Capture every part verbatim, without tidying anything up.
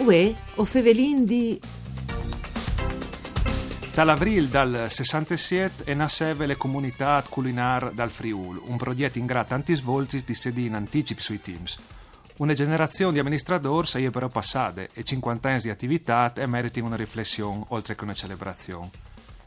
Uè, o fevelin di... Tal avrîl dal sessantesiet e nasseve le Comunitât Culinâr dal Friûl, un progjet ingrà tantis voltis di sedî in anticip sui timps. Une gjenerazion di aministradôrs e je però passade e cincuante agns di ativitât e meritin une riflession, oltri che une celebrazion.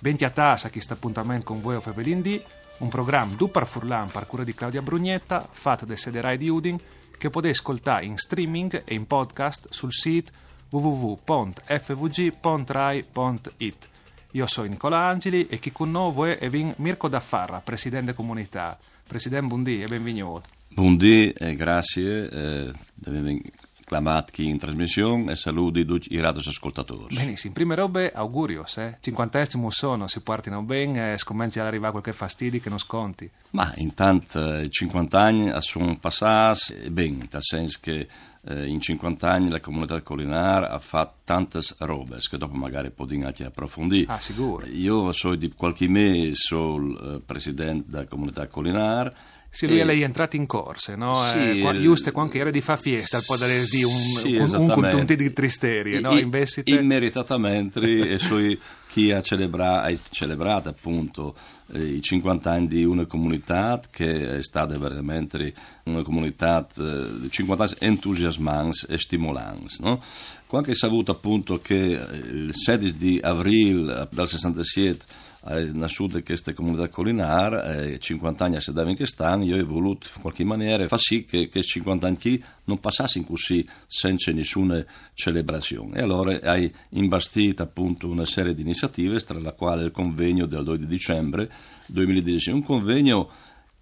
Ben cjatâts a chest apontament cun Vuê o fevelin di, un program dut par furlan par cure di Claudia Brugnetta, fat de sede Rai di Udin, che o podês scoltâ in streaming e in podcast sul sît w w w pont f v g pont rai pont i t. Jo o soi Nicola Angili e chi cun nô vuê e vin Mirco Daffarra, president de Comunitât. President, bundì e benvignût. Bundì e graciis, eh, di vêmi clamât chi in trasmission e saludi ducj i radioascoltadôrs. Benissim, prime robe augurios, eh. Cincuante agns cemût sono, si puartino ben, eh, scomencje a rivâ cualchi fastidi che nus conti? Ma intant, eh, cincuante agns a son passâts, e ben, tal sens che, eh, in cincuante agns la Comunitât Culinâr e à fat tantis robis, che dopo magari o podìn ancje aprofondî. Ah, sigûr. Jo o soi di cualchi mês, o soi, eh, president de Comunitât Culinâr. Sì, lui e al è jentrât in corse, no? Sì, eh, qua, eh, juste cuant che e jere di fâ fieste, al podarès dî un, sì, un, un esattamente. Cun un tochin di tristerie, no? I, i, invezit immeritatamente, e o soi chi e à celebrât, e à celebrât apont eh, i cincuante agns di une comunitât che e je stade verementri une comunitât, eh, di cincuante agns entusiasmants e stimolants, no? Cuant che o ai savût apont che, eh, il sedis di avrîl, eh, dal sessantesiet e je nassude cheste Comunitât Culinâr, eh, cincuante agns a sedavin chest an, jo o ai volût in cualchi maniere fâ sì che, che chescj cincuante agns chi no passassin cussì cence nissune celebrazion. E alore o ai imbastît apont une serie di iniziativis, tra la cuale il convegno dal doi di dicembre doi mil e dîs, un convegno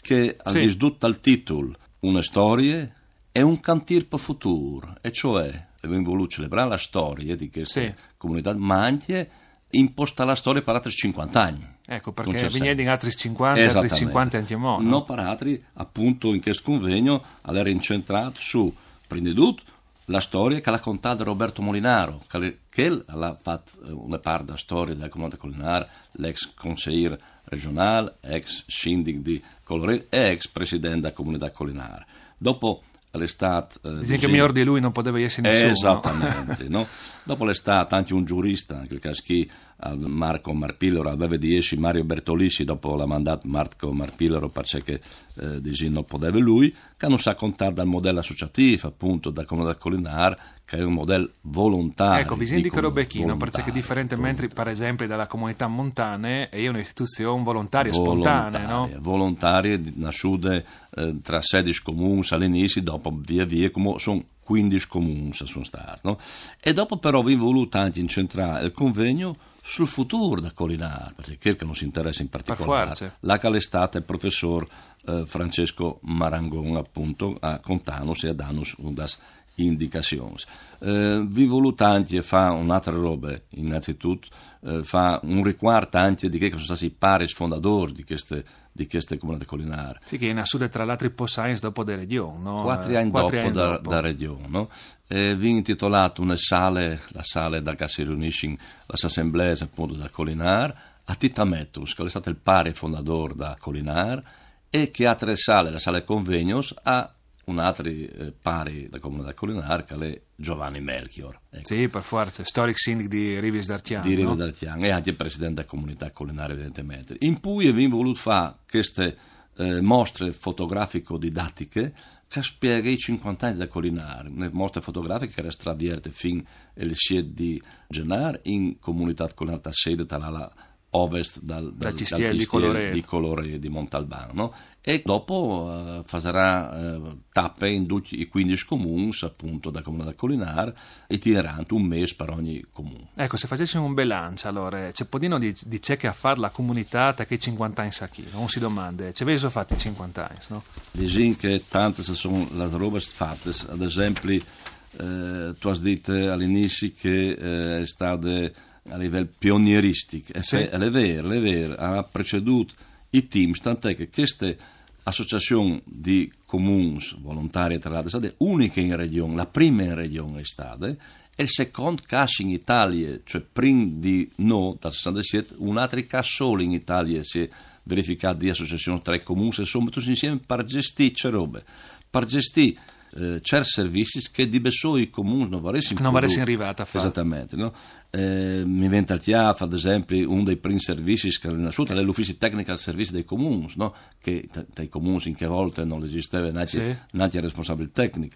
che al dîs dut tal titul, une storie e un cantîr pal futûr, e cioè o vin volût celebrâ la storie di cheste comunitât, ma ancje impostâ la storie par altris cincuante agns. Eco, parcè che o vignìn altris cincuante, altris cincuante ancjemò, no? No par altri, apont in chest convegno al jere incentrât su, prin di dut, la storie che al à contât Roberto Molinaro, che al è, che al à fat, eh, une part de storie de Comunitât Culinâr, l'ex conseîr regjonâl, ex sindic di Coloret e ex president de Comunitât Culinâr. Dopo al è stât, eh, disìn che miôr di lui no podeve jessi nissun, no? Esattamente, no? Dopo al è stât ancje un zurist, in chel câs chi, al Marco Marpilero, al veve di jessi Mario Bertolissi, dopo al à mandât Marco Marpilero parcè che, eh, disìn, no podeve lui, che nus à contât dal model associatîf, apont, de Comunitât Culinâr, che al è un model volontari. Eco, visìn di che robe chi, no? Parcè che diferentementri, par esempli, de Comunitât Montane, e je une istituzion volontarie, spontanee, no? Volontarie, volontarie, nassude, eh, tra sedis comuns al inizi, dopo vie vie, cumò a son cuindis comuns a son stâts, no? E dopo però o vin volût ancje incentrâ il convegno sul futûr de Culinâr, parcè che al nus interesse in particolâr. Par fuarce. Là che al è stât il professôr, eh, Francesco Marangon, apont, a contânus e a dânus unas indicazions. Eh, o vin volût ancje fâ une altre robe, innanzitut, eh, fâ un ricuart ancje di chei che a son stâts i paris fondadôrs di cheste, di cheste Comunitât Culinâr. Sì, che e je nassude tra l'altri po sagns dopo de Regjon, no? Cuatri agns dopo de Regjon, no? E o vin intitolât une sale, la sale dulà che si riunissin las assemblees, apont, de Culinâr, a Tita Mettus, che al è stât il pari fondadôr de Culinâr, e chê altre sale, la sale convegnos, a un altri, eh, pari de Comunitât Culinâr, che al è Giovanni Melchior. Eco. Sì, par fuarce, storic sindic di Rivis d'Arcjan, di Rivis d'Arcjan, e ancje president de Comunitât Culinâr, evidentementri. In plui o vin volût fâ cheste, eh, mostre fotografico-didatiche che e spieghe i cincuante agns de Culinâr, une mostre fotografiche che e jere stade vierte fin il siet di Zenâr in Comunitât Culinâr, ta sede, ta la ovest dal, dal, dal cjistiel di Coloret, di Montalban, no? E dopo, eh, fasarà, eh, tape in ducj i cuindis comuns, apont, de Comunitât Culinâr, itinerant, un mês par ogni comun. Eco, se o fasessin un belanç, alore, ce podìno dî, di ce che e à fat la comunitât chei cincuante agns chi, no? Un si domande, ce vêso fat i cincuante agns, no? Disìn che tantis a son las robes fatis, ad esempli, eh, tu âs dit al inizi che, eh, e je stade a nivel pionieristic. E sì, al è vêr, al è vêr, al à precedût i timps, tant'è che cheste associazion di comuns volontaris, tra l'altri, e je stade uniche in Regjon, la prime in Regjon e je stade, e il secont câs in Italie, cioè prin di nô, dal sessantesiet, un altri câs sôl in Italie si è verificât di associazion tra i comuns e si son metûts insiemi par gjestî ce robe, par gjestî eh, certs servizis che di bessôi i comuns no varessin No varessin rivât a fâ. Esattamente, no? Eh, mi vien tal cjâf, ad esempli, un dai prins servizis che al è nassût, al è l'Ufizi Tecnic al Servizi dai Comuns, no? Che ta-, tai comuns in chê volte no esisteve nancje, Sì. nancje il responsabil tecnic.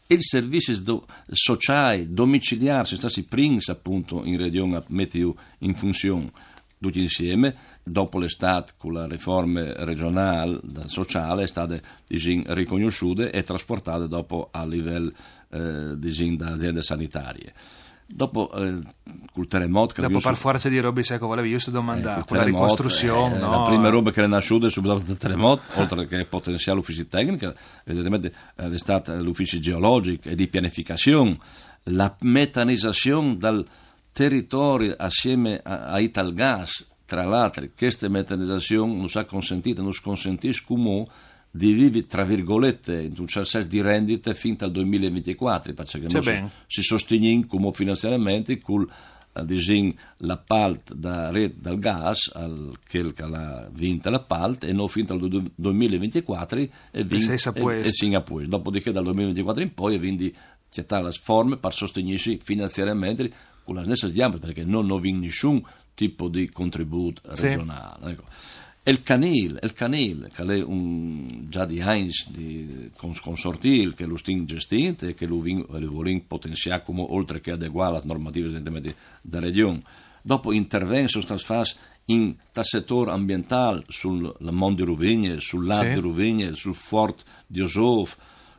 I servizis do-, sociâi, domiciliârs, a son stâts i prins apont in Regjon a metiju in funzion. Ducj insiemi, dopo al è stât cu la riforme regjonâl dal sociâl, e je stade, disìn, ricognossude e trasportade dopo a livel, eh, disìn, da aziende sanitarie. Dopo, eh, cul teremot, che Dopo al è par fuarce di robis, eco, volevi just domandâ, Eh, cul quela teremot, ricostruzion, eh, no? La prime robe che al è nassude subit dopo il teremot, oltre che potenziâ l'Ufizi Tecnic, evidentementri, eh, al è stât l'Ufizi Geologic e di Pianificazion, la metanizazion dal teritori assieme a, a Italgas, tra l'altri, cheste metanizazion nus à consentît, nus consentìs cumò di vivi, tra virgolette, intun ciert sens di rendite fin tal doi mil e vincjecuatri, parcè che nô si, si sostignìn cumò finanziariamentri cul, eh, disìn, l'apalt da Ret dal Gas, al, chel che al à vint l'apalt, e nô fin tal du-, doi mil e vincjecuatri e vin, sês a puest. E sin a puest. Dopodiché dal doi mil e vincjecuatri in poi e vin di cjatâ la forme par sostignîsi finanziariamentri cu las nestris gjambis, parcè che nô no vin nissun tipo di contribût regjonâl, eco. E il canîl, il canîl, che al è un, za di agns di cons-, consortîl che lu stin gestint e che lu vin-, lu volìn potenziâ cumò, oltre che adeguâ las normativis, evidentementri, da Regjon. Dopo intervents a son stâts fats intal setôr ambientâl, sul, la mont di Ruvigne, sul lât di Ruvigne, sul fort di Osôf,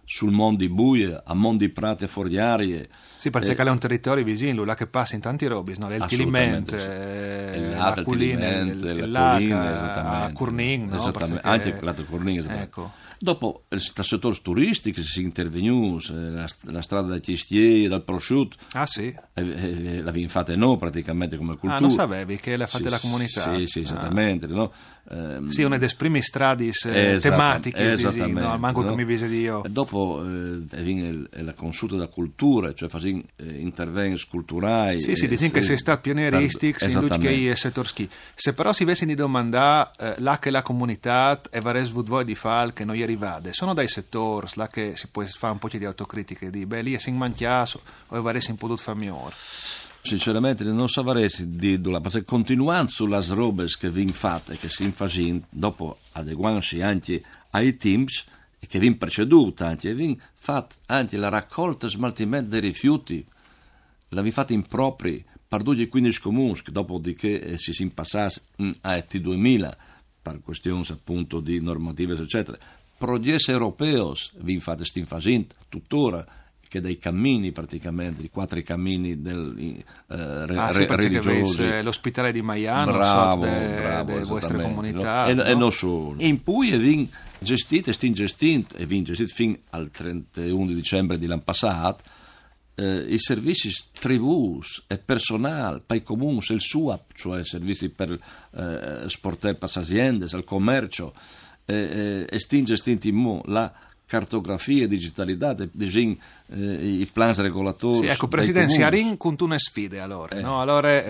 sul mont di Buie, a mont di Prate Forgjarie. Sì, parcè che al è un teritori visin, là che a passin tantis robis, no? Il Tiliment, Assolutamente, sì. Eh, Il lât, il Culine, Tiliment, il, la il lâc Culine, a, esattamente. A Curnin, no? Esattamente, Parcè che anche il lât Curnin, esattamente. Eco. Dopo, eh, tal setôr turistics si è intervegnûts, eh, la st-, la strade dai cjistiei, dal prosciut, Ah, sì? eh, eh, la vin fate nô pratichementri come culture. Ah, no savevi che le à fate la comunitât. Sì, sì, esattamente, no? Ehm, Sì, une des primis stradis, eh, Esattamente, tematichis, disìn, esattamente, no? Manco no? Che mi vise di jo. E dopo, eh, e vin il, e la consulte da culture, cioè fasìn, eh, intervents culturâi. Sì, sì, eh, disìn che sês stât pioneristic, sì, in ducj chei setôrs chi. Se però si vessin di domandâ, eh, là che la comunitât e varès vût voie di fâ, che no je rivade, a son dai setôrs là che si pues fâ un pôc di autocritiche, di, beh, li a sin mancjâts, o a varessin podût fâ miôr. Sinceramente no savarès dîlu, parcè che continuant su las robis che vin fate e che si fasìn, dopo adeguantsi ancje ai timps, e che vin precedût ancje, vin fat ancje la racolte e smaltiment dai rifiuts, la vin fate in propri par ducj i cuindis comuns, che dopo di chê, eh, si sin passâts, mm, a T duemila, par cuestions apont di normativis, eccetera. Progjets europeos vin fat, stin fasint tuttora, che dai camins pratichementri, i cuatri camins del, eh, re-, Ah, sì, re-, parcè che religiosi. Vês, eh, l'ospitâl di Maian, Bravo, sot de, bravo, de vuestre esattamente, comunitât, no? E, e no? no solo. In pui e vin gestît, e stin gestint, e vin gestît fin al trenteun di dicembri di l'an passât, eh, i servizis tribûs e personâl pai comuns, il SUAP, cioè servizis par, eh, sportâ pes aziendis, al comerç, eh, eh, e stin gestint inmò la cartografie, digitalitât, disìn, eh, i plans regolatôrs. Sì, eco, president, si arìn cuntune sfide, alore, no? Alore,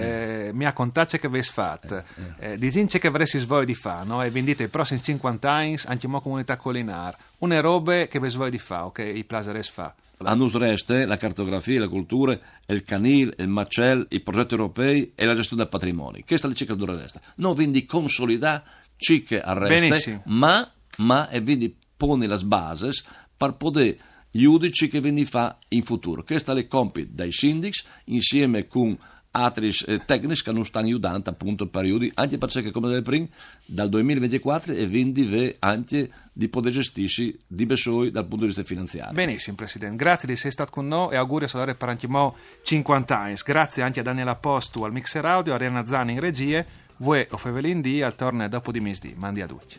eh, mi à contât ce che vês fat, eh, disìn ce che varessis voie di fâ, no? E vin dit, i prossims cincuante agns, ancjemò comunitât culinâr, une robe che vês voie di fâ, o che i plasarès fâ. A nus reste la cartografie, la culture, il canîl, il macel, i progjetts europei e la gjestion dal patrimoni. Cheste e je ce che nus reste. Nô o vin di consolidâ ce che al reste, ma, ma e vin di poni las bases par podê judâ ce che o vin di fâ in futûr. Chest al è compit dai sindics, insiemi cun altris, eh, tecnics che nus stan judant apont par judâ, ancje parcè che, come dîs prin, dal doi mil e vincjecuatri o vin di vê ancje di podê gjestîsi di bessôi dal pont di viste finanziari. Benissim, president. Graciis di jessi stât cun nô e auguris alore par ancjemò cincuante agns. Graciis ancje a Daniela Postu al mixer audio, Arianna Zan in regjie, vuê o fevelìn di, al torne dopo di misdì. Mandi a ducj.